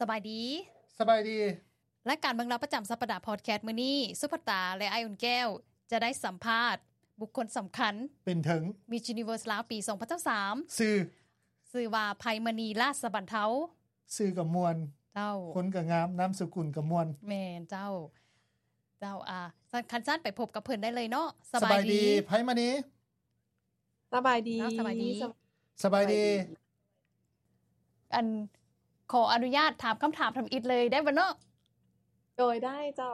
ສະບາຍດີ ສະບາຍດີ. ລາຍການເມືອງລາວປະຈຳສັບປະດາພອດແຄສມື້ນີ້ ສຸພັດຕາ ແລະ ອ້າຍອຸ່ນແກ້ວ ຈະໄດ້ສຳພາດບຸກຄົນສຳຄັນ ເປັນເຖິງ Miss Universe ລາວປີສອງພັນຊາວສາມ ຊື່ ຊື່ວ່າ ໄພມະນີ ລາດສະບັນເທົາ. ຊື່ກໍມ່ວນ ເຈົ້າ ຄົນກໍງາມ ນາມສະກຸນກໍມ່ວນ. ແມ່ນເຈົ້າ ເຈົ້າ ອ່າ ຄັນຊັ້ນໄປພົບກັບເພິ່ນໄດ້ເລີຍເນາະ. ສະບາຍດີ ສະບາຍດີ ໄພມະນີ. ສະບາຍດີ ເຈົ້າ ສະບາຍດີ ສະບາຍດີ ສະບາຍດີ. ອັນ ຂໍອະນຸຍາດຖາມຄຳຖາມທຳອິດເລີຍໄດ້ບໍ່ເນາະ? ໂດຍ ໄດ້ເຈົ້າ.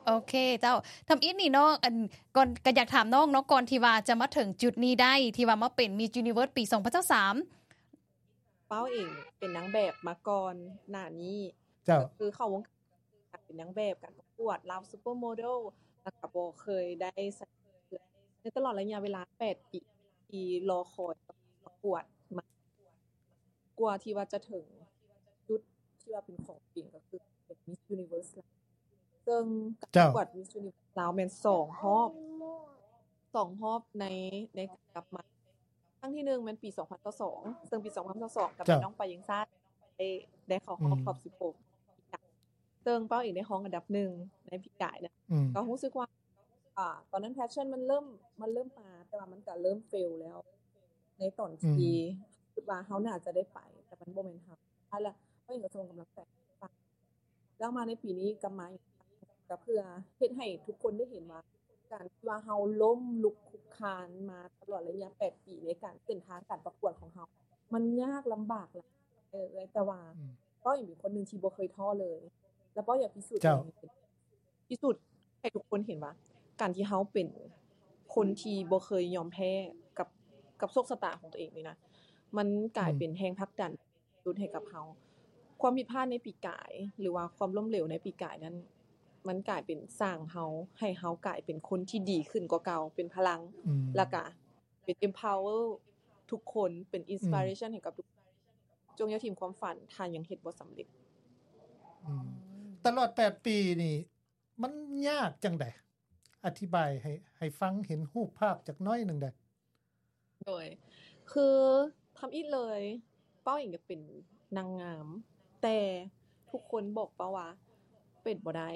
ໂອເຄເຈົ້າ ທຳອິດນີ້ເນາະ ອັນ ກ່ອນ ກໍຢາກຖາມນ້ອງເນາະ ກ່ອນທີ່ວ່າຈະມາເຖິງຈຸດນີ້ໄດ້ ທີ່ວ່າມາເປັນ Miss Universe ປີສອງພັນຊາວສາມ ເປົ້າເອງເປັນນາງແບບມາກ່ອນໜ້ານີ້. ເຈົ້າ ກໍຄືເຂົ້າວົງການເປັນນາງແບບ ການປະກວດ Love Supermodel ແລ້ວກໍບໍ່ເຄີຍໄດ້ໃສ່ເສື້ອ ໃນຕະຫຼອດໄລຍະເວລາແປດປີທີ່ລໍຄອຍປະກວດມາ ກວ່າທີ່ວ່າຈະເຖິງຈຸດທີ່ວ່າເປັນຂອງຕົວເອງ ກໍຄືເປັນ Miss Universe ລາວ ເຊິ່ງການປະກວດ Miss Universe ລາວແມ່ນສອງຮອບ ສອງຮອບໃນ ໃນການກັບມາ. ຄັ້ງທີໜຶ່ງແມ່ນປີສອງພັນຊາວສອງ ເຊິ່ງປີສອງພັນຊາວສອງກໍແມ່ນນ້ອງປາເຢັງຊາດ ໄດ້ ໄດ້ເຂົ້າຮອບ ອືມ ຮອບສິບຫົກ ເຊິ່ງເປົ້າເອງໄດ້ຮອງອັນດັບໜຶ່ງໃນປີກາຍນະ. ອືມ ກໍຮູ້ສຶກວ່າ ອ່າ ຕອນນັ້ນ passion ມັນເລີ່ມ ມັນເລີ່ມມາ ແຕ່ວ່າມັນກໍເລີ່ມ fail ແລ້ວ ໃນຕອນທີ່ ອືມ ຄິດວ່າເຮົາໜ້າຈະໄດ້ໄປ ແຕ່ມັນບໍ່ແມ່ນເຮົາ. ແລ້ວເຮົາເອງກໍສົ່ງກຳລັງໃຈໃຫ້ຟັງ ແລ້ວມາໃນປີນີ້ກັບມາອີກ ກໍເພື່ອເຮັດໃຫ້ທຸກຄົນໄດ້ເຫັນວ່າ ການທີ່ວ່າເຮົາລົ້ມລຸກຄຸກຄານມາຕະຫຼອດໄລຍະແປດປີໃນການ ເສັ້ນທາງການປະກວດຂອງເຮົາ ມັນຍາກລຳບາກຫຼາຍ ເອີ ແຕ່ວ່າ ອືມ ເປົ້າເອງເປັນຄົນໜຶ່ງທີ່ບໍ່ເຄີຍທໍ້ເລີຍ ແລ້ວເປົ້າຢາກພິສູດ ເຈົ້າ ຕົວເອງ ພິສູດໃຫ້ທຸກຄົນເຫັນວ່າ ການທີ່ເຮົາເປັນຄົນທີ່ບໍ່ເຄີຍຍອມແພ້ກັບ ກັບໂຊກຊະຕາຂອງຕົວເອງນີ້ນະ ມັນກາຍ ອືມ ເປັນແຮງຜັກດັນສຸດໃຫ້ກັບເຮົາ. ຄວາມຜິດພາດໃນປີກາຍ ຫຼືວ່າຄວາມລົ້ມເຫຼວໃນປີກາຍນັ້ນ ມັນກາຍເປັນສ້າງເຮົາ ໃຫ້ເຮົາກາຍເປັນຄົນທີ່ດີຂຶ້ນກວ່າເກົ່າ ເປັນພະລັງ ອືມ ແລ້ວກະເປັນ empower ທຸກຄົນ ເປັນ inspiration ອືມ ໃຫ້ກັບທຸກຄົນ. ຈົ່ງຢ່າຖິ້ມຄວາມຝັນ ຖ້າຍັງເຮັດບໍ່ສຳເລັດ. ອືມ ຕະຫຼອດແປດປີນີ້ ມັນຍາກຈັ່ງໃດ? ອະທິບາຍໃຫ້ ໃຫ້ຟັງເຫັນຮູບພາບຈັກໜ້ອຍໜຶ່ງໄດ້? ໂດຍ ຄືທຳອິດເລີຍ ເປົ້າເອງຢາກເປັນນາງງາມ ແຕ່ທຸກຄົນບອກເປົ້າວ່າ ເປັນບໍ່ໄດ້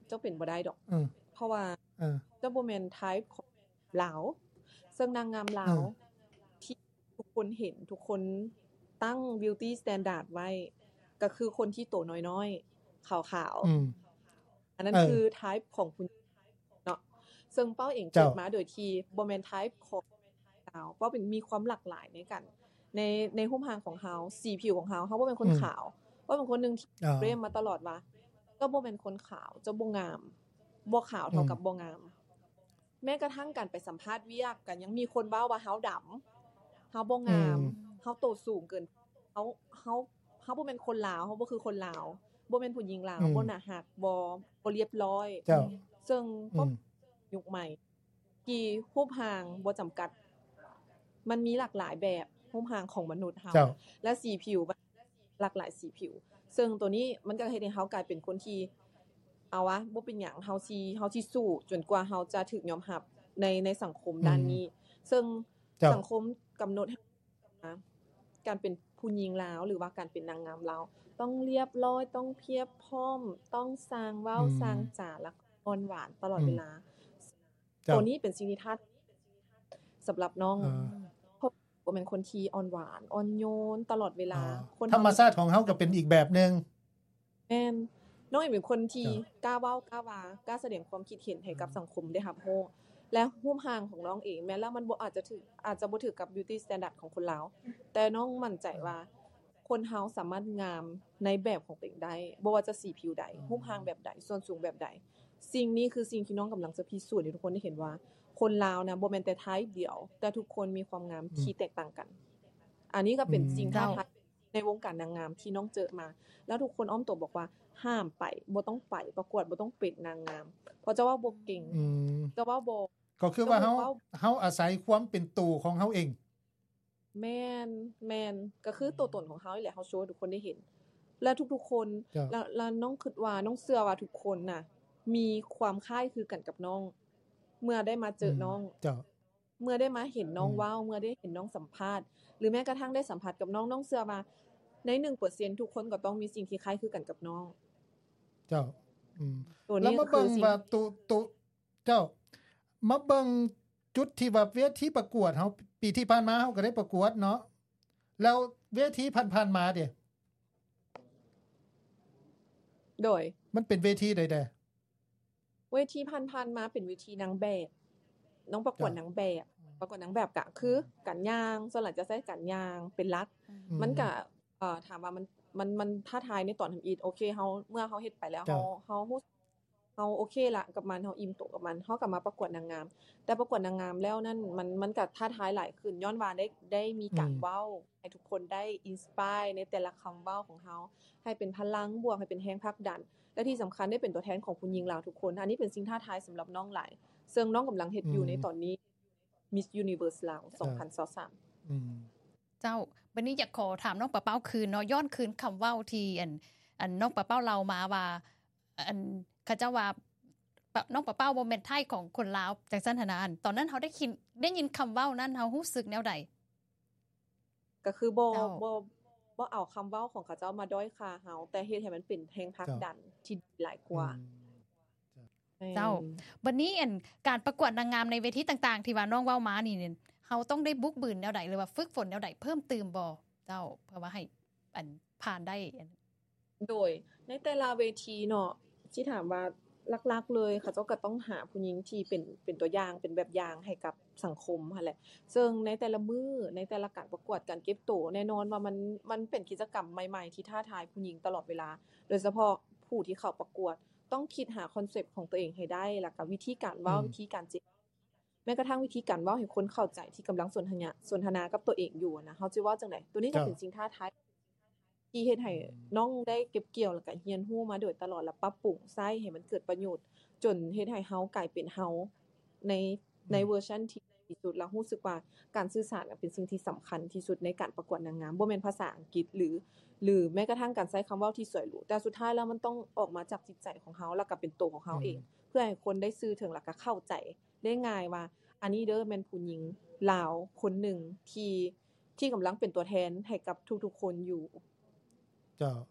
ເຈົ້າເປັນບໍ່ໄດ້ດອກ ເອີ ເພາະວ່າ ເອີ ເຈົ້າບໍ່ແມ່ນ type ຂອງລາວ ເຊິ່ງນາງງາມລາວ ເອີ ທີ່ ທຸກຄົນເຫັນ ທຸກຄົນຕັ້ງ beauty standard ໄວ້ ກໍຄືຄົນທີ່ໂຕນ້ອຍໆ ຂາວໆ ອືມ ອັນນັ້ນ ເອີ ຄື type ຂອງຜູ້ຍິງເນາະ ເຊິ່ງເປົ້າເອງ ເຈົ້າ ເກີດມາໂດຍທີ່ບໍ່ແມ່ນ type ຂອງລາວ ເປົ້າເປັນ ມີຄວາມຫຼາກຫຼາຍໃນການ ໃນ ໃນຮູບຮ່າງຂອງເຮົາ ສີຜິວຂອງເຮົາ ເຮົາບໍ່ແມ່ນຄົນ ອືມ ຂາວ ເປົ້າເປັນຄົນໜຶ່ງທີ່ ອ່າ ເຄລມມາຕະຫຼອດວ່າ ເຈົ້າບໍ່ແມ່ນຄົນຂາວ ເຈົ້າບໍ່ງາມ ບໍ່ຂາວເທົ່າກັບ ອືມ ບໍ່ງາມ. ແມ້ກະທັ່ງການໄປສຳພາດວຽກ ກໍຍັງມີຄົນເວົ້າວ່າເຮົາດຳ ເຮົາບໍ່ງາມ ອືມ ເຮົາໂຕສູງເກີນ ເຮົາ ເຮົາ ເຮົາບໍ່ແມ່ນຄົນລາວ ເຮົາບໍ່ຄືຄົນລາວ ບໍ່ແມ່ນຜູ້ຍິງລາວ ອືມ ບໍ່ໜ້າຮັກ ບໍ່ ບໍ່ລຽບຮ້ອຍ ເຈົ້າ ເຊິ່ງ ອືມ ຍຸກໃໝ່ ທີ່ຮູບຮ່າງບໍ່ຈຳກັດ ມັນມີຫຼາກຫຼາຍແບບ ຮູບຮ່າງຂອງມະນຸດເຮົາ ເຈົ້າ ແລະ ສີຜິວ ຫຼາກຫຼາຍສີຜິວ ເຊິ່ງໂຕນີ້ມັນກໍເຮັດໃຫ້ເຮົາກາຍເປັນຄົນທີ່ ເອົາວະ ບໍ່ເປັນຫຍັງ ເຮົາຊິ ເຮົາຊິສູ້ຈົນກວ່າເຮົາຈະຖືກຍອມຮັບໃນ ໃນສັງຄົມ ອືມ ດ້ານນີ້ ເຊິ່ງ ເຈົ້າ ສັງຄົມກຳນົດໃຫ້ ການເປັນຜູ້ຍິງລາວ ຫຼືວ່າການເປັນນາງງາມລາວ ຕ້ອງລຽບຮ້ອຍ ຕ້ອງພຽບພ້ອມ ຕ້ອງຊ່າງເວົ້າ ອືມ ຊ່າງຈາ ແລ້ວກໍອ່ອນຫວານຕະຫຼອດ ອືມ ເວລາ. ເຈົ້າ ໂຕນີ້ເປັນສິ່ງທີ່ທ້າ ສຳລັບນ້ອງ ອ່າ ເພາະບໍ່ແມ່ນຄົນທີ່ອ່ອນຫວານ ອ່ອນໂຍນຕະຫຼອດເວລາ ອ່າ ຄົນ ທຳມະຊາດຂອງເຮົາກໍເປັນອີກແບບໜຶ່ງ. ແມ່ນ ນ້ອງເອງເປັນຄົນທີ່ ເຈົ້າ ກ້າເວົ້າ ກ້າວ່າ ກ້າສະແດງຄວາມຄິດເຫັນໃຫ້ກັບ ອືມ ສັງຄົມໄດ້ຮັບຮູ້ ແລະ ຮູບຮ່າງຂອງນ້ອງເອງ ແມ່ນແລ້ວມັນບໍ່ ອາດຈະຖືກ ອາດຈະບໍ່ຖືກກັບ beauty standard ຂອງຄົນລາວ ແຕ່ນ້ອງໝັ້ນໃຈວ່າ ອືມ ຄົນເຮົາສາມາດງາມໃນແບບຂອງຕົວເອງໄດ້ ບໍ່ວ່າຈະສີຜິວໃດ ອືມ ຮູບຮ່າງແບບໃດ ສ່ວນສູງແບບໃດ. ສິ່ງນີ້ຄືສິ່ງທີ່ນ້ອງກຳລັງຈະພິສູດໃຫ້ທຸກຄົນໄດ້ເຫັນວ່າ ຄົນລາວນະ ບໍ່ແມ່ນແຕ່ type ດຽວ ແຕ່ທຸກຄົນມີຄວາມງາມ ອືມ ທີ່ແຕກຕ່າງກັນ. ອັນນີ້ກໍເປັນ ອືມ ສິ່ງທ້າທາຍ ເຈົ້າ ໃນວົງການນາງງາມທີ່ນ້ອງເຈີມາ ແລ້ວທຸກຄົນອ້ອມຕົວບອກວ່າ ຫ້າມໄປ ບໍ່ຕ້ອງໄປປະກວດ ບໍ່ຕ້ອງເປັນນາງງາມ ເພາະເຈົ້າເວົ້າບໍ່ເກັ່ງ ອືມ ເຈົ້າເວົ້າບໍ່ ກໍຄືວ່າເຮົາ ເຮົາອາໄສຄວາມເປັນໂຕຂອງເຮົາເອງ. ແມ່ນ ແມ່ນ ກໍຄື ອືມ ຕົວຕົນຂອງເຮົານີ້ແຫຼະ ເຮົາໂຊໃຫ້ທຸກຄົນໄດ້ເຫັນ ແລະ ທຸກໆຄົນ ເຈົ້າ ແລະ ແລະ ນ້ອງຄິດວ່າ ນ້ອງເຊື່ອວ່າທຸກຄົນນະ ມີຄວາມຄ້າຍຄືກັນກັບນ້ອງ ເມື່ອໄດ້ມາເຈີ ອືມ ນ້ອງ ເຈົ້າ ເມື່ອໄດ້ມາເຫັນນ້ອງ ອືມ ເວົ້າ ເມື່ອໄດ້ເຫັນນ້ອງສຳພາດ ຫຼືແມ້ກະທັ່ງໄດ້ສຳຜັດກັບນ້ອງ ນ້ອງເຊື່ອວ່າ ໃນໜຶ່ງເປີເຊັນ ທຸກຄົນກໍຕ້ອງມີສິ່ງທີ່ຄ້າຍຄືກັນກັບນ້ອງ. ເຈົ້າ ອືມ ໂຕນີ້ ແລ້ວມາເບິ່ງວ່າ ໂຕ ໂຕ ເຈົ້າ ມາເບິ່ງຈຸດທີ່ວ່າເວທີປະກວດເຮົາ ປີທີ່ຜ່ານມາເຮົາກໍໄດ້ປະກວດເນາະ ແລ້ວເວທີຜ່ານໆມາເດ? ໂດຍ ມັນເປັນເວທີໃດແດ່? ເວທີຜ່ານໆມາເປັນເວທີນາງແບບ ນ້ອງປະກວດ ເຈົ້າ ນາງແບບ ອືມ ປະກວດນາງແບບກະຄື ອືມ ການຍ່າງ ສ່ວນຫຼາຍຈະໃຊ້ການຍ່າງເປັນຫຼັກ ອືມ ມັນກະ ເອີ ຖາມວ່າມັນ ມັນ ມັນທ້າທາຍໃນຕອນທຳອິດ ໂອເຄ ເຮົາ ເມື່ອເຮົາເຮັດໄປແລ້ວ ເຈົ້າ ເຮົາ ເຮົາຮູ້ ເຮົາໂອເຄລະກັບມັນ ເຮົາອີ່ມໂຕກັບມັນ ເຮົາກໍມາປະກວດນາງງາມ. ແຕ່ປະກວດນາງງາມແລ້ວນັ້ນ ມັນ ມັນກໍທ້າທາຍຫຼາຍຂຶ້ນ ຍ້ອນວ່າໄດ້ ໄດ້ມີການ ອືມ ເວົ້າ ໃຫ້ທຸກຄົນໄດ້ inspire ໃນແຕ່ລະຄຳເວົ້າຂອງເຮົາ ໃຫ້ເປັນພະລັງບວກ ໃຫ້ເປັນແຮງຜັກດັນ ແລະທີ່ສຳຄັນໄດ້ເປັນຕົວແທນຂອງຜູ້ຍິງລາວທຸກຄົນ. ອັນນີ້ເປັນສິ່ງທ້າທາຍສຳລັບນ້ອງຫຼາຍ ເຊິ່ງນ້ອງກຳລັງເຮັດຢູ່ ອືມ ໃນຕອນນີ້ Miss Universe ລາວ ເອີ ສອງພັນຊາວສາມ. ອືມ ເຈົ້າ ບັດນີ້ຢາກຂໍຖາມນ້ອງປາເປົ້າຄືນເນາະ ຍ້ອນຄືນຄຳເວົ້າທີ່ ອັນ ອັນ ນ້ອງປາເປົ້າເລົ່າມາວ່າ ອັນ ເຂົາເຈົ້າວ່າ ປະ ນ້ອງປາເປົ້າບໍ່ແມ່ນໄທຂອງຄົນລາວ ຈັ່ງຊັ້ນຫັ້ນນະ. ອັນ ຕອນນັ້ນເຮົາໄດ້ຄິນ ໄດ້ຍິນຄຳເວົ້ານັ້ນ ເຮົາຮູ້ສຶກແນວໃດ? ກໍຄືບໍ່ ເຈົ້າ ບໍ່ ບໍ່ເອົາຄຳເວົ້າຂອງເຂົາເຈົ້າມາດ້ອຍຄ່າເຮົາ ແຕ່ເຮັດໃຫ້ມັນເປັນແຮງຜັກ ເຈົ້າ ດັນທີ່ດີຫຼາຍກວ່າ. ອືມ ເຈົ້າ ແມ່ນ ເຈົ້າ ບັດນີ້ ອັນ ການປະກວດນາງງາມໃນເວທີຕ່າງໆ ທີ່ວ່ານ້ອງເວົ້າມານີ້ ເຮົາຕ້ອງໄດ້ບຸກບືນແນວໃດ ຫຼືວ່າຝຶກຝົນແນວໃດເພີ່ມຕື່ມບໍ່ເຈົ້າ ເພື່ອວ່າໃຫ້ ອັນ ຜ່ານໄດ້? ໂດຍ ໃນແຕ່ລະເວທີເນາະ ຊິຖາມວ່າຫຼັກໆເລີຍ ເຂົາເຈົ້າກໍຕ້ອງຫາຜູ້ຍິງທີ່ເປັນ ເປັນຕົວຢ່າງ ເປັນແບບຢ່າງໃຫ້ກັບສັງຄົມຫັ້ນແຫຼະ. ເຊິ່ງໃນແຕ່ລະມື້ ໃນແຕ່ລະການປະກວດ ການເກັບໂຕ ແນ່ນອນວ່າມັນ ມັນເປັນກິດຈະກຳໃໝ່ໆທີ່ທ້າທາຍຜູ້ຍິງຕະຫຼອດເວລາ ໂດຍສະເພາະຜູ້ທີ່ເຂົ້າປະກວດ ຕ້ອງຄິດຫາຄອນເຊັບຂອງຕົວເອງໃຫ້ໄດ້ ແລ້ວກໍວິທີການເວົ້າ ອືມ ວິທີການເຈລະ ແມ້ກະທັ່ງວິທີການເວົ້າໃຫ້ຄົນເຂົ້າໃຈທີ່ກຳລັງສົນທະນາ ສົນທະນາກັບຕົວເອງຢູ່ນະ ເຮົາຈະເວົ້າຈັ່ງໃດ? ໂຕນີ້ກໍເປັນ ເຈົ້າ ສິ່ງທ້າທາຍທີ່ເຮັດໃຫ້ ອືມ ນ້ອງໄດ້ເກັບກ່ຽວ ແລ້ວກະຮຽນຮູ້ມາໂດຍຕະຫຼອດ ແລ້ວປັບປຸງໃຊ້ໃຫ້ມັນເກີດປະໂຫຍດ ຈົນເຮັດໃຫ້ເຮົາກາຍເປັນເຮົາໃນ ອືມ ໃນເວີຊັນທີ່ດີທີ່ສຸດ ແລ້ວຮູ້ສຶກວ່າການສື່ສານເປັນສິ່ງທີ່ສຳຄັນທີ່ສຸດໃນການປະກວດນາງງາມ ບໍ່ແມ່ນພາສາອັງກິດ ຫຼື ຫຼືແມ້ກະທັ່ງການໃຊ້ຄຳເວົ້າທີ່ສວຍຫຼູ ແຕ່ສຸດທ້າຍແລ້ວມັນຕ້ອງອອກມາຈາກຈິດໃຈຂອງເຮົາ ແລ້ວກະເປັນໂຕຂອງເຮົາເອງ ອືມ ເພື່ອໃຫ້ຄົນໄດ້ຊື່ເຖິງ ແລ້ວກະເຂົ້າໃຈ ໄດ້ງ່າຍວ່າ ອັນນີ້ເດີແມ່ນຜູ້ຍິງລາວຄົນໜຶ່ງທີ່ ທີ່ກຳລັງເປັນຕົວແທນໃຫ້ກັບທຸກໆຄົນຢູ່. ເຈົ້າ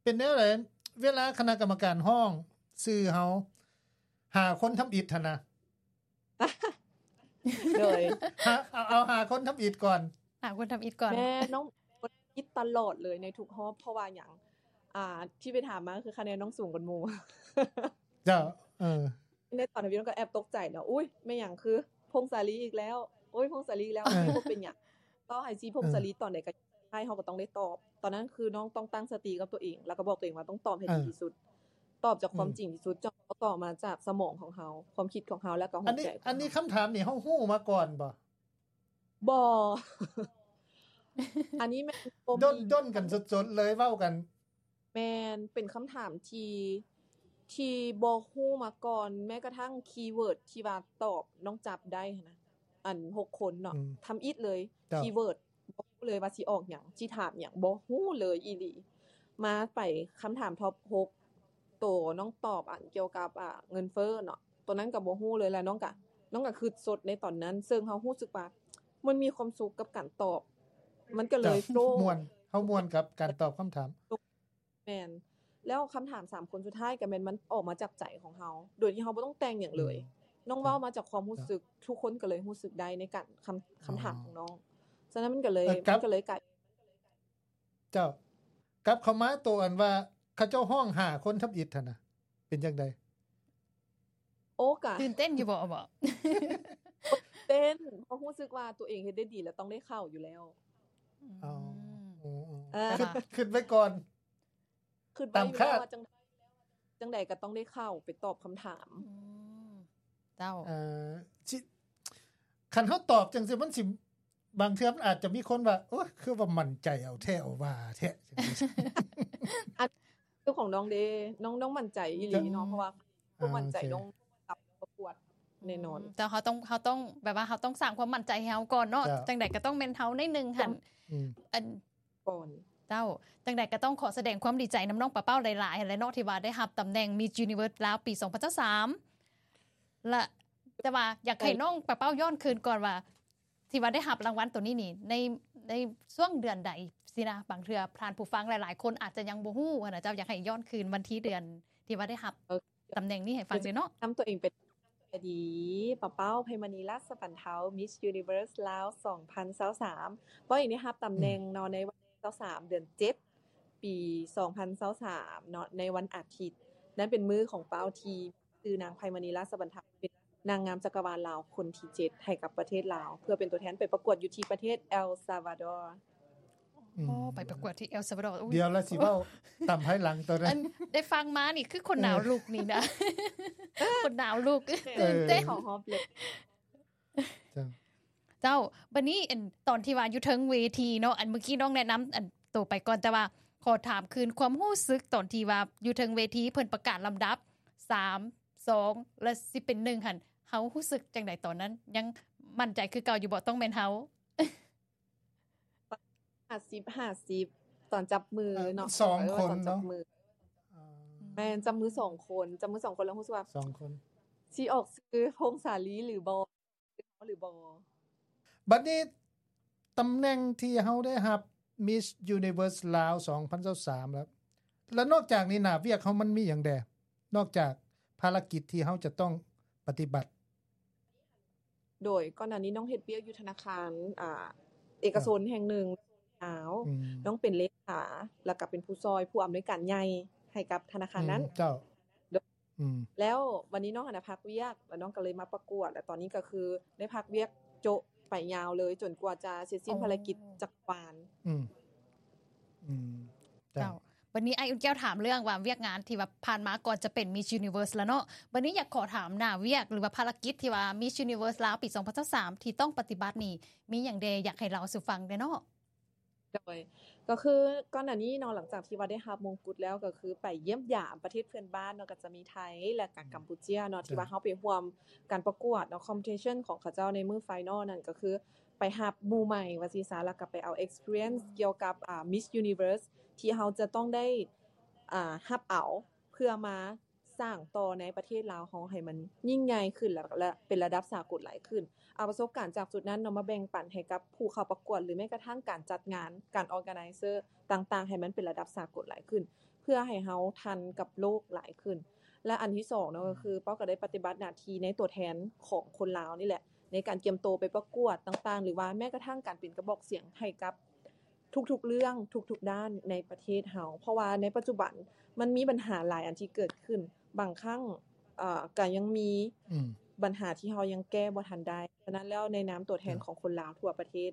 ເປັນແນວໃດ ເວລາຄະນະກຳມະການຮ້ອງຊື່ເຮົາ ຫາຄົນທຳອິດຫັ້ນນະ? ໂດຍ ຫາ ເອົາ ເອົາຫາຄົນທຳອິດກ່ອນ ຫາຄົນທຳອິດກ່ອນ. ແມ່ນ ນ້ອງ ຄົນທຳອິດຕະຫຼອດເລີຍໃນທຸກຮອບ ເພາະວ່າຫຍັງ? ອ່າ ທີ່ໄປຖາມມາຄືຄະແນນນ້ອງສູງກວ່າໝູ່. ເຈົ້າ ເອີ ໃນຕອນທຳອິດນ້ອງກໍແອບຕົກໃຈເນາະ ອຸ້ຍ ແມ່ນຫຍັງ ຄືພົງສາລີອີກແລ້ວ ໂອ້ຍ ພົງສາລີອີກແລ້ວ ເອີ ບໍ່ເປັນຫຍັງ ຕໍ່ໃຫ້ຊີພົງສາລີ ເອີ ຕອນໃດກໍໄດ້ ເຮົາກໍຕ້ອງໄດ້ຕອບ. ຕອນນັ້ນຄືນ້ອງຕ້ອງຕັ້ງສະຕິກັບຕົວເອງ ແລ້ວກໍບອກຕົວເອງວ່າຕ້ອງຕອບໃຫ້ ເອີ ດີທີ່ສຸດ ຕອບຈາກຄວາມ ອືມ ຈິງທີ່ສຸດ ຈະຕ້ອງອອກມາຈາກສະໝອງຂອງເຮົາ ຄວາມຄິດຂອງເຮົາ ແລ້ວກໍຫົວໃຈຂອງເຮົາ. ອັນນີ້ຄຳຖາມນີ້ເຮົາຮູ້ມາກ່ອນບໍ່? ບໍ່ ອັນນີ້ແມ່ນ ດົນກັນສົດໆເລີຍ ເວົ້າກັນ. ແມ່ນ ເປັນຄຳຖາມທີ່ ທີ່ບໍ່ຮູ້ມາກ່ອນ ແມ້ກະທັ່ງຄີເວີດທີ່ວ່າຕອບນ້ອງຈັບໄດ້ຫັ້ນນະ ອັນ ຫົກຄົນເນາະ ອືມ ທຳອິດເລີຍ ເຈົ້າ ຄີເວີດ ບໍ່ຮູ້ເລີຍວ່າຊິອອກຫຍັງ ຊິຖາມຫຍັງ ບໍ່ຮູ້ເລີຍອີ່ຫຼີ. ມາໄປຄຳຖາມທັອບຫົກ ໂຕນ້ອງຕອບອັນກ່ຽວກັບ ອ່າ ເງິນເຟີ້ເນາະ ໂຕນັ້ນກໍບໍ່ຮູ້ເລີຍ ແລ້ວນ້ອງກະ ນ້ອງກະຄຶດສົດໃນຕອນນັ້ນ ເຊິ່ງເຮົາຮູ້ສຶກວ່າມັນມີຄວາມສຸກກັບການຕອບ ມັນກໍເລີຍ ເຈົ້າ ໂຟລ ມ່ວນ ເຮົາມ່ວນກັບການຕອບຄຳຖາມ. ແມ່ນ ແລ້ວຄຳຖາມສາມຄົນສຸດທ້າຍກໍແມ່ນມັນອອກມາຈາກໃຈຂອງເຮົາ ໂດຍທີ່ເຮົາບໍ່ຕ້ອງແຕ່ງຫຍັງເລີຍ ອືມ ນ້ອງເວົ້າມາຈາກຄວາມຮູ້ສຶກ ເຈົ້າ ທຸກຄົນກໍເລີຍຮູ້ສຶກໄດ້ໃນການຄຳ ເອີ ຄຳຖາມຂອງນ້ອງ. ສະນັ້ນມັນກໍເລີຍ ເອີ ມັນກໍເລີຍກາຍ ເຈົ້າ ກັບເຂົ້າມາໂຕອັນວ່າເຂົາເຈົ້າຮ້ອງຫາຄົນທຳອິດຫັ້ນນະ ເປັນຈັ່ງໃດ? ໂອ້ ກະ ຕື່ນເຕັ້ນຢູ່ບໍ່? ບໍ່ ເຕັ້ນ ເພາະຮູ້ສຶກວ່າຕົວເອງເຮັດໄດ້ດີແລ້ວ ຕ້ອງໄດ້ເຂົ້າຢູ່ແລ້ວ. ອືມ ອໍ ເອີ ຄິດ ຄິດໄວ້ກ່ອນ ຄິດໄວ້ຢູ່ແລ້ວວ່າຈັ່ງ ຈັ່ງໃດກໍຕ້ອງໄດ້ເຂົ້າໄປຕອບຄຳຖາມ. ອືມ ເຈົ້າ ເອີ ຊິ ຄັນເຮົາຕອບຈັ່ງຊີ້ ມັນຊິ ບາງເທື່ອມັນອາດຈະມີຄົນວ່າ ໂອ້ຍ ຄືວ່າໝັ້ນໃຈເອົາແທ້ເອົາວ່າແທ້. ອັນ ຄືຂອງນ້ອງເດ້ ນ້ອງ ນ້ອງໝັ້ນໃຈອີ່ຫຼີເນາະ ເພາະວ່າ ເອີ ໝັ້ນໃຈ ໂອເຄ ນ້ອງກັບປະກວດແນ່ນອນ. ອືມ ແຕ່ເຮົາຕ້ອງ ເຮົາຕ້ອງ ແບບວ່າເຮົາຕ້ອງສ້າງຄວາມໝັ້ນໃຈໃຫ້ເຮົາກ່ອນເນາະ. ເຈົ້າ ຈັ່ງໃດກໍຕ້ອງແມ່ນເຮົາໜ້ອຍໜຶ່ງຫັ້ນ. ອືມ ອັນ ກ່ອນ. ເຈົ້າ ຈັ່ງໃດກໍຕ້ອງຂໍສະແດງຄວາມດີໃຈນຳນ້ອງປາເປົ້າຫຼາຍໆຫັ້ນແຫຼະເນາະ ທີ່ວ່າໄດ້ຮັບຕຳແໜ່ງ Miss Universe ລາວ ປີສອງພັນຊາວສາມ ລະ ແຕ່ວ່າຢາກໃຫ້ ເອີ ນ້ອງປາເປົ້າຍ້ອນຄືນກ່ອນວ່າ ທີ່ວ່າໄດ້ຮັບລາງວັນໂຕນີ້ນີ້ ໃນ ໄດ້ຊ່ວງເດືອນໃດຊີ້ນະ? ບາງເທື່ອທ່ານຜູ້ຟັງຫຼາຍໆຄົນອາດຈະຍັງບໍ່ຮູ້ຫັ້ນນະເຈົ້າ, ຢາກໃຫ້ຍ້ອນຄືນວັນທີເດືອນທີ່ວ່າໄດ້ຮັບ ເອີ ຕຳແໜ່ງນີ້ໃຫ້ຟັງແດ່ເນາະ. ນຳຕົວເອງເປັນ ສະບາຍດີ ປາເປົ້າ ໄພມະນີ ລາຊະບັນເທົາ Miss Universe ລາວ ສອງພັນຊາວສາມ. ເປົ້າເອງໄດ້ຮັບຕຳແໜ່ງເນາະ ໃນວັນທີຊາວສາມ ເດືອນເຈັດ ປີສອງພັນຊາວສາມເນາະ ໃນວັນອາທິດ. ນັ້ນເປັນມື້ຂອງເປົ້າທີ່ຊື່ນາງ ໄພມະນີ ລາຊະບັນເທົາ ເປັນນາງງາມຈັກກະວານລາວຄົນທີເຈັດ ໃຫ້ກັບປະເທດລາວ ເພື່ອເປັນຕົວແທນໄປປະກວດຢູ່ທີ່ປະເທດ El Salvador. ອືມ ອໍ ໄປປະກວດທີ່ El Salvador. ອຸ້ຍ ດຽວລະຊິເວົ້າຕາມພາຍຫຼັງໂຕນັ້ນ. ອັນ ໄດ້ຟັງມານີ້ຄືຂົນໜາວລຸກນີ້ນະ ຂົນໜາວລຸກ ເອີ ຕື່ນເຕັ້ນ ເຈົ້າ ເຈົ້າ. ບັດນີ້ ອັນ ຕອນທີ່ວ່າຢູ່ເທິງເວທີເນາະ ອັນ ເມື່ອກີ້ນ້ອງແນະນຳ ອັນ ໂຕໄປກ່ອນ, ແຕ່ວ່າຂໍຖາມຄືນຄວາມຮູ້ສຶກຕອນທີ່ວ່າຢູ່ເທິງເວທີ ເພິ່ນປະກາດລຳດັບ ສາມ ສອງ ແລະ ຊິເປັນ ໜຶ່ງ ຫັ້ນ ເຮົາຮູ້ສຶກຈັ່ງໃດຕອນນັ້ນ? ຍັງໝັ້ນໃຈຄືເກົ່າຢູ່ບໍ່? ຕ້ອງແມ່ນເຮົາ ຫ້າສິບ ຫ້າສິບ ຕອນຈັບມືເນາະ ເອີ ສອງຄົນເນາະ ເອີ ຕອນຈັບມື ເອີ ແມ່ນ ຈັບມືສອງຄົນ ຈັບມືສອງຄົນ ແລ້ວຮູ້ສຶກວ່າ ສອງຄົນ ຊິອອກຊື່ ພົງສາລີ ຫຼືບໍ່ ຫຼືບໍ່. ບັດນີ້ຕຳແໜ່ງທີ່ເຮົາໄດ້ຮັບ Miss Universe ລາວ ສອງພັນຊາວສາມ ແລ້ວ ແລ້ວນອກຈາກນີ້ໜ້າວຽກເຮົາມັນມີຫຍັງແດ່? ນອກຈາກພາລະກິດທີ່ເຮົາຈະຕ້ອງປະຕິບັດ. ໂດຍ ກ່ອນໜ້ານີ້ນ້ອງເຮັດວຽກຢູ່ທະນາຄານ ອ່າ ເອກະຊົນແຫ່ງໜຶ່ງ ອືມ ນ້ອງເປັນເລຂາ ແລ້ວກໍເປັນຜູ້ຊ່ອຍຜູ້ອຳນວຍການໃຫຍ່ໃຫ້ກັບທະນາຄານນັ້ນ ອືມ ເຈົ້າ ໂດຍ ອືມ ແລ້ວວັນນີ້ນ້ອງຫັ້ນນະພັກວຽກ ແລ້ວນ້ອງກໍເລີຍມາປະກວດ ແລ້ວຕອນນີ້ກໍຄືໄດ້ພັກວຽກໂຈະໄປຍາວເລີຍ ຈົນກວ່າຈະເສັດສິ້ນ ອໍ ພາລະກິດຈັກກະວານ ອືມ ອືມ ເຈົ້າ ເຈົ້າ. ບັດນີ້ອ້າຍອຸ່ນແກ້ວຖາມເລື່ອງວ່າວຽກງານທີ່ວ່າຜ່ານມາກ່ອນຈະເປັນ Miss Universe ລະເນາະ, ບັດນີ້ຢາກຂໍຖາມໜ້າວຽກ ຫຼືວ່າພາລະກິດທີ່ວ່າ Miss Universe ລາວປີສອງພັນຊາວສາມ ທີ່ຕ້ອງປະຕິບັດນີ້ ມີຫຍັງແດ່ ຢາກໃຫ້ເລົ່າສູ່ຟັງແດ່ເນາະ? ໂດຍ ກໍຄືກ່ອນໜ້ານີ້ເນາະ ຫຼັງຈາກທີ່ວ່າໄດ້ຮັບມົງກຸດແລ້ວ ກໍຄືໄປຢ້ຽມຢາມປະເທດເພື່ອນບ້ານເນາະ ກໍຈະມີໄທ ແລະກະກຳປູເຈຍເນາະ ທີ່ວ່າເຮົາໄປຮ່ວມການປະກວດເນາະ competition ຂອງເຂົາເຈົ້າໃນມື້ final ນັ້ນ ກໍຄື ໄປຮັບໝູ່ໃໝ່ວ່າຊີ້ຊະ ແລ້ວກໍໄປເອົາ experience ກ່ຽວກັບ ອ່າ Miss Universe ທີ່ເຮົາຈະຕ້ອງໄດ້ ອ່າ ຮັບເອົາ ເພື່ອມາສ້າງຕໍ່ໃນປະເທດລາວເຮົາໃຫ້ມັນຍິ່ງໃຫຍ່ຂຶ້ນ ແລະ ແລະເປັນລະດັບສາກົນຫຼາຍຂຶ້ນ. ເອົາປະສົບການຈາກຈຸດນັ້ນເນາະ ມາແບ່ງປັນໃຫ້ກັບຜູ້ເຂົ້າປະກວດ ຫຼືແມ້ກະທັ້ງການຈັດງານ ການ organizer ຕ່າງໆ ໃຫ້ມັນເປັນລະດັບສາກົນຫຼາຍຂຶ້ນ ເພື່ອໃຫ້ເຮົາທັນກັບໂລກຫຼາຍຂຶ້ນ. ແລະ ອັນທີສອງເນາະ ກໍຄືເປົ້າກໍໄດ້ປະຕິບັດໜ້າທີ່ໃນຕົວແທນຂອງຄົນລາວນີ້ແຫຼະ ໃນການກຽມໂຕໄປປະກວດຕ່າງໆ ຫຼືວ່າແມ້ກະທັ້ງການເປັນກະບອກສຽງໃຫ້ກັບທຸກໆເລື່ອງ ທຸກໆດ້ານໃນປະເທດເຮົາ ເພາະວ່າໃນປັດຈຸບັນມັນມີບັນຫາຫຼາຍອັນທີ່ເກີດຂຶ້ນ ບາງຄັ້ງ ເອີ ກະຍັງມີ ອືມ ບັນຫາທີ່ເຮົາຍັງແກ້ບໍ່ທັນໄດ້. ສະນັ້ນແລ້ວ ໃນນາມຕົວແທນຂອງຄົນລາວທົ່ວປະເທດ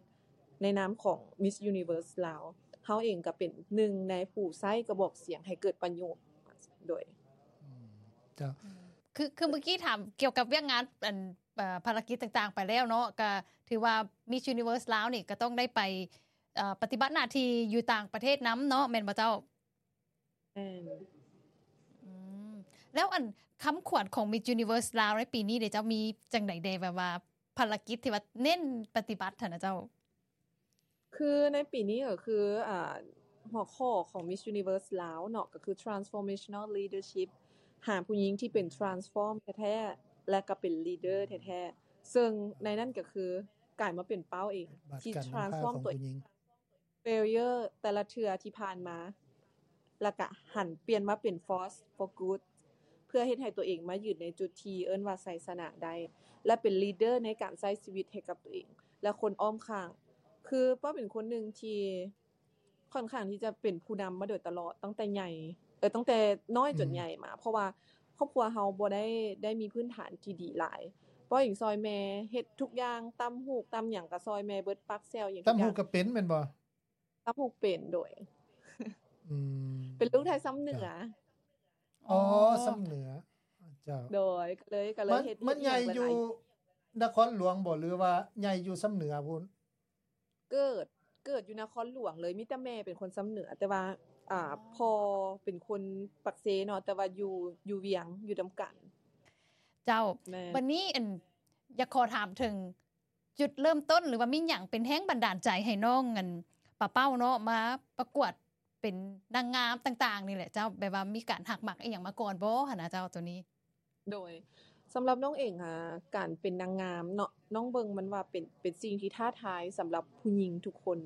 ໃນນາມຂອງ Miss Universe ລາວ ເຮົາເອງກະເປັນໜຶ່ງໃນຜູ້ໃຊ້ກະບອກສຽງໃຫ້ເກີດປະໂຫຍດ ໂດຍ ອືມ ເຈົ້າ ອືມ ຄື ຄືເມື່ອກີ້ຖາມກ່ຽວກັບວຽກງານ ອັນ ເອີ ພາລະກິດຕ່າງໆໄປແລ້ວເນາະ ກະຖືວ່າ Miss Universe ລາວນີ້ກະຕ້ອງໄດ້ໄປ ເອີ ປະຕິບັດໜ້າທີ່ຢູ່ຕ່າງປະເທດນຳເນາະ ແມ່ນບໍ່ເຈົ້າ? ແມ່ນ ອືມ ແລ້ວອັນຄຳຂວັນຂອງ Miss Universe ລາວໃນປີນີ້ເດເຈົ້າ ມີຈັ່ງໃດແດ່ ແບບວ່າພາລະກິດທີ່ວ່າເນັ້ນປະຕິບັດຫັ້ນນະເຈົ້າ? ຄືໃນປີນີ້ກໍຄື ອ່າ ຫົວຂໍ້ຂອງ Miss Universe ລາວເນາະ ກໍຄື Transformational Leadership ຫາຜູ້ຍິງທີ່ເປັນ transform ແທ້ໆ ແລະ ກໍເປັນ leader ແທ້ໆ ເຊິ່ງໃນນັ້ນກໍຄືກາຍມາເປັນເປົ້າເອງ ທີ່ transform ຕົວເອງ failure ແຕ່ລະເທື່ອທີ່ຜ່ານມາ ແລ້ວກະຫັນປ່ຽນມາເປັນ force for good ເພື່ອເຮັດໃຫ້ຕົວເອງມາຢືນໃນຈຸດທີ່ເອີ້ນວ່າໄຊຊະນະໄດ້ ແລະ ເປັນ leader ໃນການໃຊ້ຊີວິດໃຫ້ກັບຕົວເອງ ແລະ ຄົນອ້ອມຂ້າງ. ຄືເປົ້າເປັນຄົນໜຶ່ງທີ່ຄ່ອນຂ້າງທີ່ຈະເປັນຜູ້ນຳມາໂດຍຕະຫຼອດ ຕັ້ງແຕ່ໃຫຍ່ ເອີ ຕັ້ງແຕ່ນ້ອຍຈົນໃຫຍ່ມາ ເພາະວ່າຄອບຄົວເຮົາບໍ່ໄດ້ ໄດ້ມີພື້ນຖານທີ່ດີຫຼາຍ. ເປົ້າເອງຊ່ອຍແມ່ເຮັດທຸກຢ່າງ ຕຳຫູກຕຳຫຍັງກະຊ່ອຍແມ່ເບິດ ປັກແຊວຫຍັງ ຕຳຫູກກະເປັນແມ່ນບໍ່? ຕຳຫູກເປັນ ໂດຍ ອືມ ເປັນລູກໄທຊຳເໜືອ ອໍ ຊຳເໜືອ ເຈົ້າ ໂດຍ ກະເລີຍ ກະເລີຍເຮັດ ມັນໃຫຍ່ຢູ່ນະຄອນຫຼວງບໍ່ ຫຼືວ່າໃຫຍ່ຢູ່ຊຳເໜືອພຸ້ນ? ເກີດ ເກີດຢູ່ນະຄອນຫຼວງເລີຍ ມີແຕ່ແມ່ເປັນຄົນຊຳເໜືອ ແຕ່ວ່າ ອ່າ ພໍ່ເປັນຄົນປາກເຊເນາະ ແຕ່ວ່າຢູ່ ຢູ່ວຽງ ຢູ່ນຳກັນ ເຈົ້າ. ແມ່ນ ບັດນີ້ ອັນ ຢາກຂໍຖາມເຖິງ ຈຸດເລີ່ມຕົ້ນ ຫຼືວ່າມີຫຍັງເປັນແຮງບັນດານໃຈໃຫ້ນ້ອງ ອັນ ປາເປົ້າເນາະ ມາປະກວດເປັນນາງງາມຕ່າງໆນີ້ແຫຼະເຈົ້າ ແບບວ່າມີການຮັກມັກອີ່ຫຍັງມາກ່ອນບໍ່ຫັ້ນນະເຈົ້າ ໂຕນີ້? ໂດຍ ສຳລັບນ້ອງເອງ ອາ ການເປັນນາງງາມເນາະ ນ້ອງເບິ່ງມັນວ່າເປັນ ເປັນສິ່ງທີ່ທ້າທາຍສຳລັບຜູ້ຍິງທຸກຄົນ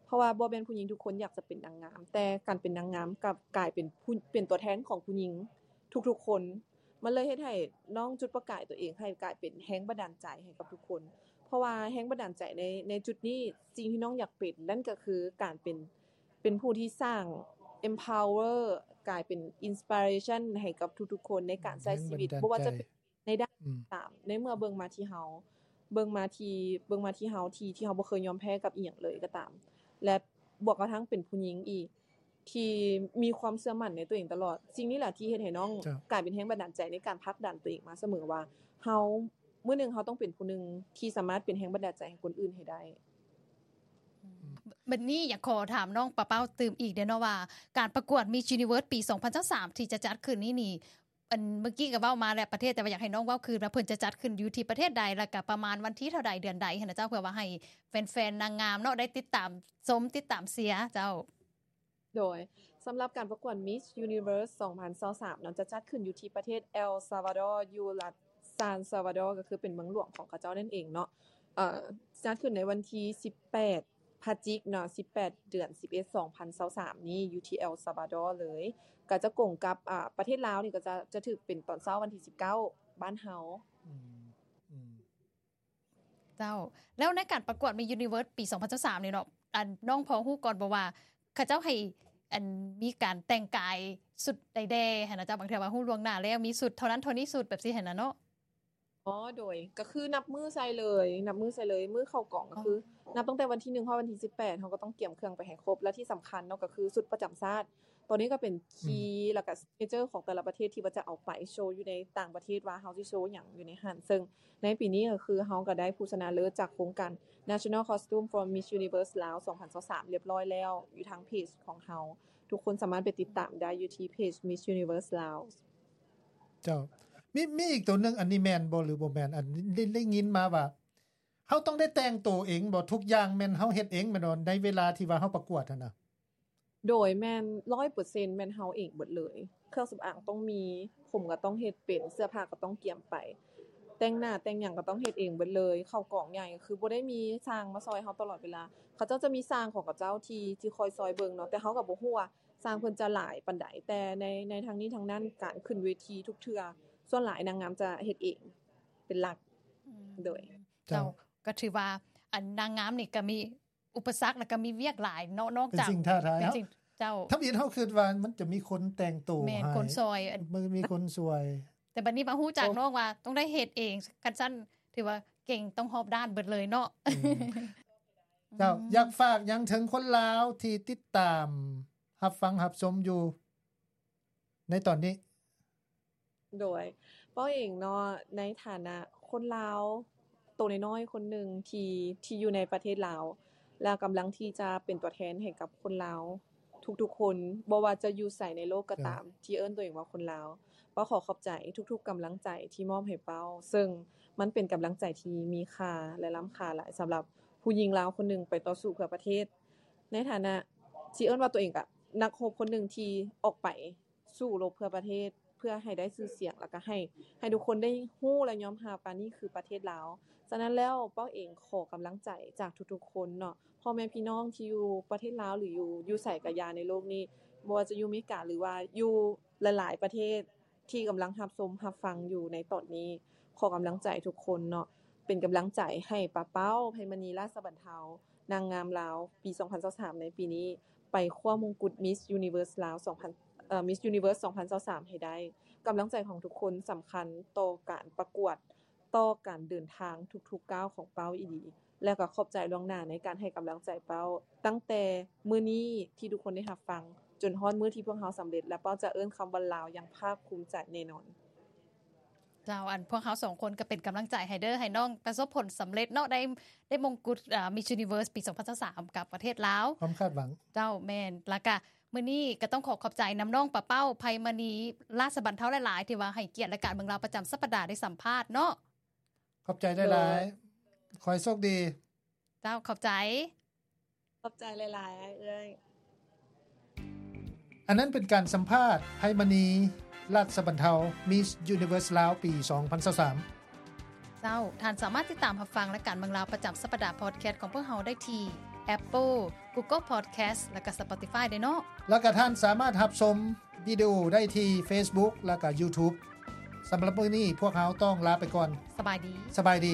ເພາະວ່າບໍ່ແມ່ນຜູ້ຍິງທຸກຄົນຢາກຈະເປັນນາງງາມ ແຕ່ການເປັນນາງງາມກັບກາຍເປັນຜູ້ ເປັນຕົວແທນຂອງຜູ້ຍິງທຸກໆຄົນ ມັນເລີຍເຮັດໃຫ້ນ້ອງຈຸດປະກາຍຕົວເອງໃຫ້ກາຍເປັນແຮງບັນດານໃຈໃຫ້ກັບທຸກຄົນ ເພາະວ່າແຮງບັນດານໃຈໃນ ໃນຈຸດນີ້ ສິ່ງທີ່ນ້ອງຢາກເປັນ ນັ້ນກໍຄືການເປັນ ເປັນຜູ້ທີ່ສ້າງ empower ກາຍເປັນ inspiration ໃຫ້ກັບທຸກໆຄົນໃນການໃຊ້ຊີວິດ ແຮງບັນດານໃຈ ບໍ່ວ່າຈະເປັນໃນດ້ານ ອືມ ຕາມ ໃນເມື່ອເບິ່ງມາທີ່ເຮົາ ເບິ່ງມາທີ່ ເບິ່ງມາທີ່ເຮົາ ທີ່ ທີ່ເຮົາບໍ່ເຄີຍຍອມແພ້ກັບອີ່ຫຍັງເລີຍກໍຕາມ ແລະ ບວກກະທັ່ງເປັນຜູ້ຍິງອີກ ທີ່ມີຄວາມເຊື່ອໝັ້ນໃນຕົວເອງຕະຫຼອດ. ສິ່ງນີ້ແຫຼະທີ່ເຮັດໃຫ້ນ້ອງ ເຈົ້າ ກາຍເປັນແຮງບັນດານໃຈໃນການຜັກດັນຕົວເອງມາສະເໝີວ່າ ເຮົາ ມື້ໜຶ່ງເຮົາຕ້ອງເປັນຜູ້ໜຶ່ງທີ່ສາມາດເປັນແຮງບັນດານໃຈໃຫ້ຄົນອື່ນໃຫ້ໄດ້. ອືມ ບັດນີ້ຢາກຂໍຖາມນ້ອງປາເປົ້າຕື່ມອີກເດ້ເນາະວ່າ ການປະກວດ Miss Universe ປີສອງພັນຊາວສາມ ທີ່ຈະຈັດຂຶ້ນນີ້ນີ້ ອັນ ເມື່ອກີ້ກໍເວົ້າມາແລ້ວປະເທດ ແຕ່ວ່າຢາກໃຫ້ນ້ອງເວົ້າຄືນວ່າເພິ່ນຈະຈັດຂຶ້ນຢູ່ທີ່ປະເທດໃດ ແລ້ວກໍປະມານວັນທີເທົ່າໃດ ເດືອນໃດຫັ້ນນະເຈົ້າ ເພື່ອວ່າໃຫ້ແຟນໆນາງງາມເນາະ ໄດ້ຕິດຕາມຊົມ ຕິດຕາມເຊຍເຈົ້າ. ໂດຍ ສຳລັບການປະກວດ Miss Universe ສອງພັນຊາວສາມເນາະ ຈະຈັດຂຶ້ນຢູ່ທີ່ປະເທດ El Salvador ຢູ່ລັດ San Salvador ກໍຄືເປັນເມືອງຫຼວງຂອງເຂົາເຈົ້ານັ້ນເອງເນາະ. ເອີ ຈັດຂຶ້ນໃນວັນທີສິບແປດ ພະຈິກເນາະ ສິບແປດ ເດືອນສິບເອັດ ສອງພັນຊາວສາມນີ້ ຢູ່ທີ່ El Salvador ເລີຍ ກໍຈະກົງກັບ ອາ ປະເທດລາວນີ້ ກໍຈະ ຈະຖືກເປັນຕອນເຊົ້າວັນທີສິບເກົ້າ ບ້ານເຮົາ. ອືມ ອືມ ເຈົ້າ ແລ້ວໃນການປະກວດ Miss Universe ປີສອງພັນຊາວສາມນີ້ເນາະ ອັນ ນ້ອງພໍຮູ້ກ່ອນບໍ່ວ່າ ເຂົາເຈົ້າໃຫ້ ອັນ ມີການແຕ່ງກາຍຊຸດໃດແດ່ຫັ້ນນະເຈົ້າ? ບາງເທື່ອວ່າຮູ້ລ່ວງໜ້າແລ້ວ ມີຊຸດເທົ່ານັ້ນເທົ່ານີ້ຊຸດ ແບບຊີ້ຫັ້ນນະເນາະ. ອໍ ໂດຍ ກໍຄືນັບມື້ໃສ່ເລີຍ ນັບມື້ໃສ່ເລີຍ ມື້ເຂົ້າກອງກໍຄື ອໍ ນັບຕັ້ງແຕ່ວັນທີໜຶ່ງຮອດວັນທີສິບແປດ ເຮົາກໍຕ້ອງກຽມເຄື່ອງໄປໃຫ້ຄົບ ແລະ ທີ່ສຳຄັນເນາະ ກໍຄືຊຸດປະຈຳຊາດ ໂຕນີ້ກໍເປັນ key ອືມ ແລ້ວກໍ signature ຂອງແຕ່ລະປະເທດທີ່ວ່າຈະເອົາໄປໂຊຢູ່ໃນຕ່າງປະເທດວ່າເຮົາຊິໂຊຫຍັງຢູ່ໃນຫັ້ນ ເຊິ່ງໃນປີນີ້ກໍຄືເຮົາກໍໄດ້ຜູ້ຊະນະເລີດຈາກໂຄງການ National Costume for Miss Universe ລາວ ສອງພັນຊາວສາມ ລຽບຮ້ອຍແລ້ວ ຢູ່ທາງເພຈຂອງເຮົາ ທຸກຄົນສາມາດໄປຕິດຕາມໄດ້ຢູ່ທີ່ເພຈ Miss Universe ລາວ. ເຈົ້າ ມີ ມີອີກໂຕໜຶ່ງ ອັນນີ້ແມ່ນບໍ່ ຫຼືບໍ່ແມ່ນ? ອັນ ໄດ້ ໄດ້ຍິນມາວ່າ ເຮົາຕ້ອງໄດ້ແຕ່ງໂຕເອງບໍ່? ທຸກຢ່າງແມ່ນເຮົາເຮັດເອງແມ່ນບໍ່ ໃນເວລາທີ່ວ່າເຮົາປະກວດຫັ້ນນະ? ໂດຍ ແມ່ນ ຮ້ອຍເປີເຊັນ ແມ່ນເຮົາເອງເບິດເລີຍ ເຄື່ອງສຳອາງຕ້ອງມີ ຜົມກໍຕ້ອງເຮັດເປັນ ເສື້ອຜ້າກໍຕ້ອງກຽມໄປ ແຕ່ງໜ້າແຕ່ງຫຍັງກໍຕ້ອງເຮັດເອງເບິດເລີຍ ເຂົ້າກອງໃຫຍ່ກໍຄືບໍ່ໄດ້ມີຊ່າງມາຊ່ອຍເຮົາຕະຫຼອດເວລາ ເຂົາເຈົ້າຈະມີຊ່າງຂອງເຂົາເຈົ້າທີ່ ທີ່ຄອຍຊ່ອຍເບິ່ງເນາະ ແຕ່ເຮົາກໍບໍ່ຮູ້ວ່າຊ່າງເພິ່ນຈະຫຼາຍປານໃດ ແຕ່ໃນ ໃນທັງນີ້ທັງນັ້ນ ການຂຶ້ນເວທີທຸກເທື່ອ ສ່ວນຫຼາຍນາງງາມຈະເຮັດເອງເປັນຫຼັກ. ອືມ ໂດຍ ເຈົ້າ ເຈົ້າ ກໍຖືວ່າ ອັນ ນາງງາມນີ້ກໍມີ ອຸປະສັກ ແລ້ວກໍມີວຽກຫຼາຍເນາະ ນອກຈາກ ເປັນສິ່ງທ້າທາຍ ເປັນສິ່ງ ເຈົ້າ ທຳອິດເຮົາຄິດວ່າມັນຈະມີຄົນແຕ່ງໂຕ ແມ່ນ ໃຫ້ ຄົນຊ່ອຍ ມັນມີຄົນຊ່ວຍ ແຕ່ບັດນີ້ມາຮູ້ຈັກ ໂອ້ ນ້ອງວ່າຕ້ອງໄດ້ເຮັດເອງ ຄັນຊັ້ນຖືວ່າເກັ່ງ ຕ້ອງຮອບດ້ານເບິດເລີຍເນາະ. ອືມ ເຈົ້າ ອືມ ຢາກຝາກຫຍັງເຖິງຄົນລາວທີ່ຕິດຕາມ ຮັບຟັງ ຮັບຊົມຢູ່ໃນຕອນນີ້? ໂດຍ ເປົ້າເອງເນາະ ໃນຖານະຄົນລາວໂຕນ້ອຍໆຄົນໜຶ່ງທີ່ ທີ່ຢູ່ໃນປະເທດລາວ ແລະ ກຳລັງທີ່ຈະເປັນຕົວແທນໃຫ້ກັບຄົນລາວທຸກໆຄົນ ບໍ່ວ່າຈະຢູ່ໃສໃນໂລກກໍຕາມ ເຈົ້າ ທີ່ເອີ້ນຕົວເອງວ່າຄົນລາວ ເປົ້າຂໍຂອບໃຈທຸກໆກຳລັງໃຈທີ່ມອບໃຫ້ເປົ້າ ເຊິ່ງມັນເປັນກຳລັງໃຈທີ່ມີຄ່າ ແລະ ລ້ຳຄ່າຫຼາຍ ສຳລັບຜູ້ຍິງລາວຄົນໜຶ່ງໄປຕໍ່ສູ້ເພື່ອປະເທດ ໃນຖານະທີ່ເອີ້ນວ່າຕົວເອງກະນັກຮົບຄົນໜຶ່ງທີ່ອອກໄປ ສູ້ລົບເພື່ອປະເທດ ເພື່ອໃຫ້ໄດ້ຊື່ສຽງ ແລ້ວກະໃຫ້ ໃຫ້ທຸກຄົນໄດ້ຮູ້ ແລະ ຍອມຮັບວ່ານີ້ຄືປະເທດລາວ. ສະນັ້ນແລ້ວ ເປົ້າເອງຂໍກຳລັງໃຈຈາກທຸກໆຄົນເນາະ ພໍ່ແມ່ພີ່ນ້ອງທີ່ຢູ່ປະເທດລາວ ຫຼື ຢູ່ ຢູ່ໃສກະຢ່າໃນໂລກນີ້ ບໍ່ວ່າຈະຢູ່ເມກາ ຫຼືວ່າຢູ່ຫຼາຍໆປະເທດທີ່ກຳລັງຮັບຊົມຮັບຟັງຢູ່ໃນຕອນນີ້ ຂໍກຳລັງໃຈທຸກຄົນເນາະ ເປັນກຳລັງໃຈໃຫ້ປາເປົ້າ ໄພມະນີ ລາຊະບັນເທົາ ນາງງາມລາວປີສອງພັນຊາວສາມໃນປີນີ້ ໄປຄວ້າມົງກຸດ Miss Universe ລາວສອງພັນ ເອີ Miss Universe ສອງພັນຊາວສາມໃຫ້ໄດ້. ກຳລັງໃຈຂອງທຸກຄົນສຳຄັນຕໍ່ການປະກວດ, ຕໍ່ການເດີນທາງທຸກໆກ້າວຂອງເປົ້າອີ່ຫຼີ ແລະ ກໍຂອບໃຈລ່ວງໜ້າໃນການໃຫ້ກຳລັງໃຈເປົ້າ ຕັ້ງແຕ່ມື້ນີ້ທີ່ທຸກຄົນໄດ້ຮັບຟັງ ຈົນຮອດມື້ທີ່ພວກເຮົາສຳເລັດ ແລະ ເປົ້າຈະເອີ້ນຄຳວ່າລາວຢ່າງພາກພູມໃຈແນ່ນອນ. ເຈົ້າ ອັນພວກເຮົາສອງຄົນກໍເປັນກຳລັງໃຈໃຫ້ເດີ ໃຫ້ນ້ອງປະສົບຜົນສຳເລັດເນາະ ໄດ້ ໄດ້ມົງກຸດ ອາ Miss Universe ປີສອງພັນຊາວສາມກັບປະເທດລາວ. ຄວາມຄາດຫວັງ. ເຈົ້າ ແມ່ນ. ແລ້ວກະມື້ນີ້ກໍຕ້ອງຂໍຂອບໃຈນຳນ້ອງປາເປົ້າ ໄພມະນີ ລາຊະບັນເທົາ ຫຼາຍໆ ທີ່ວ່າໃຫ້ກຽດລາຍການເມືອງລາວປະຈຳສັບປະດາໄດ້ສຳພາດເນາະ. ຂອບໃຈຫຼາຍໆ. ໂດຍ. ຂໍໃຫ້ໂຊກດີ. ເຈົ້າ ຂອບໃຈ. ຂອບໃຈຫຼາຍໆ ອ້າຍເອື້ອຍ. ອັນນັ້ນເປັນການສຳພາດ ໄພມະນີ ລັດສະບັນເທົາ Miss Universe ລາວ ປີສອງພັນຊາວສາມ. ເຈົ້າ, ທ່ານສາມາດຕິດຕາມຮັບຟັງລາຍການເມືອງລາວປະຈຳສັບປະດາພອດແຄສຂອງພວກເຮົາໄດ້ທີ່ Apple, Google Podcast ແລະກະ Spotify ເດ້ເນາະ. ແລະກະທ່ານສາມາດຮັບຊົມວິດີໂອໄດ້ທີ່ Facebook ແລະກະ YouTube. ສຳລັບມື້ນີ້ພວກເຮົາຕ້ອງລາໄປກ່ອນ. ສະບາຍດີ. ສະບາຍດີ.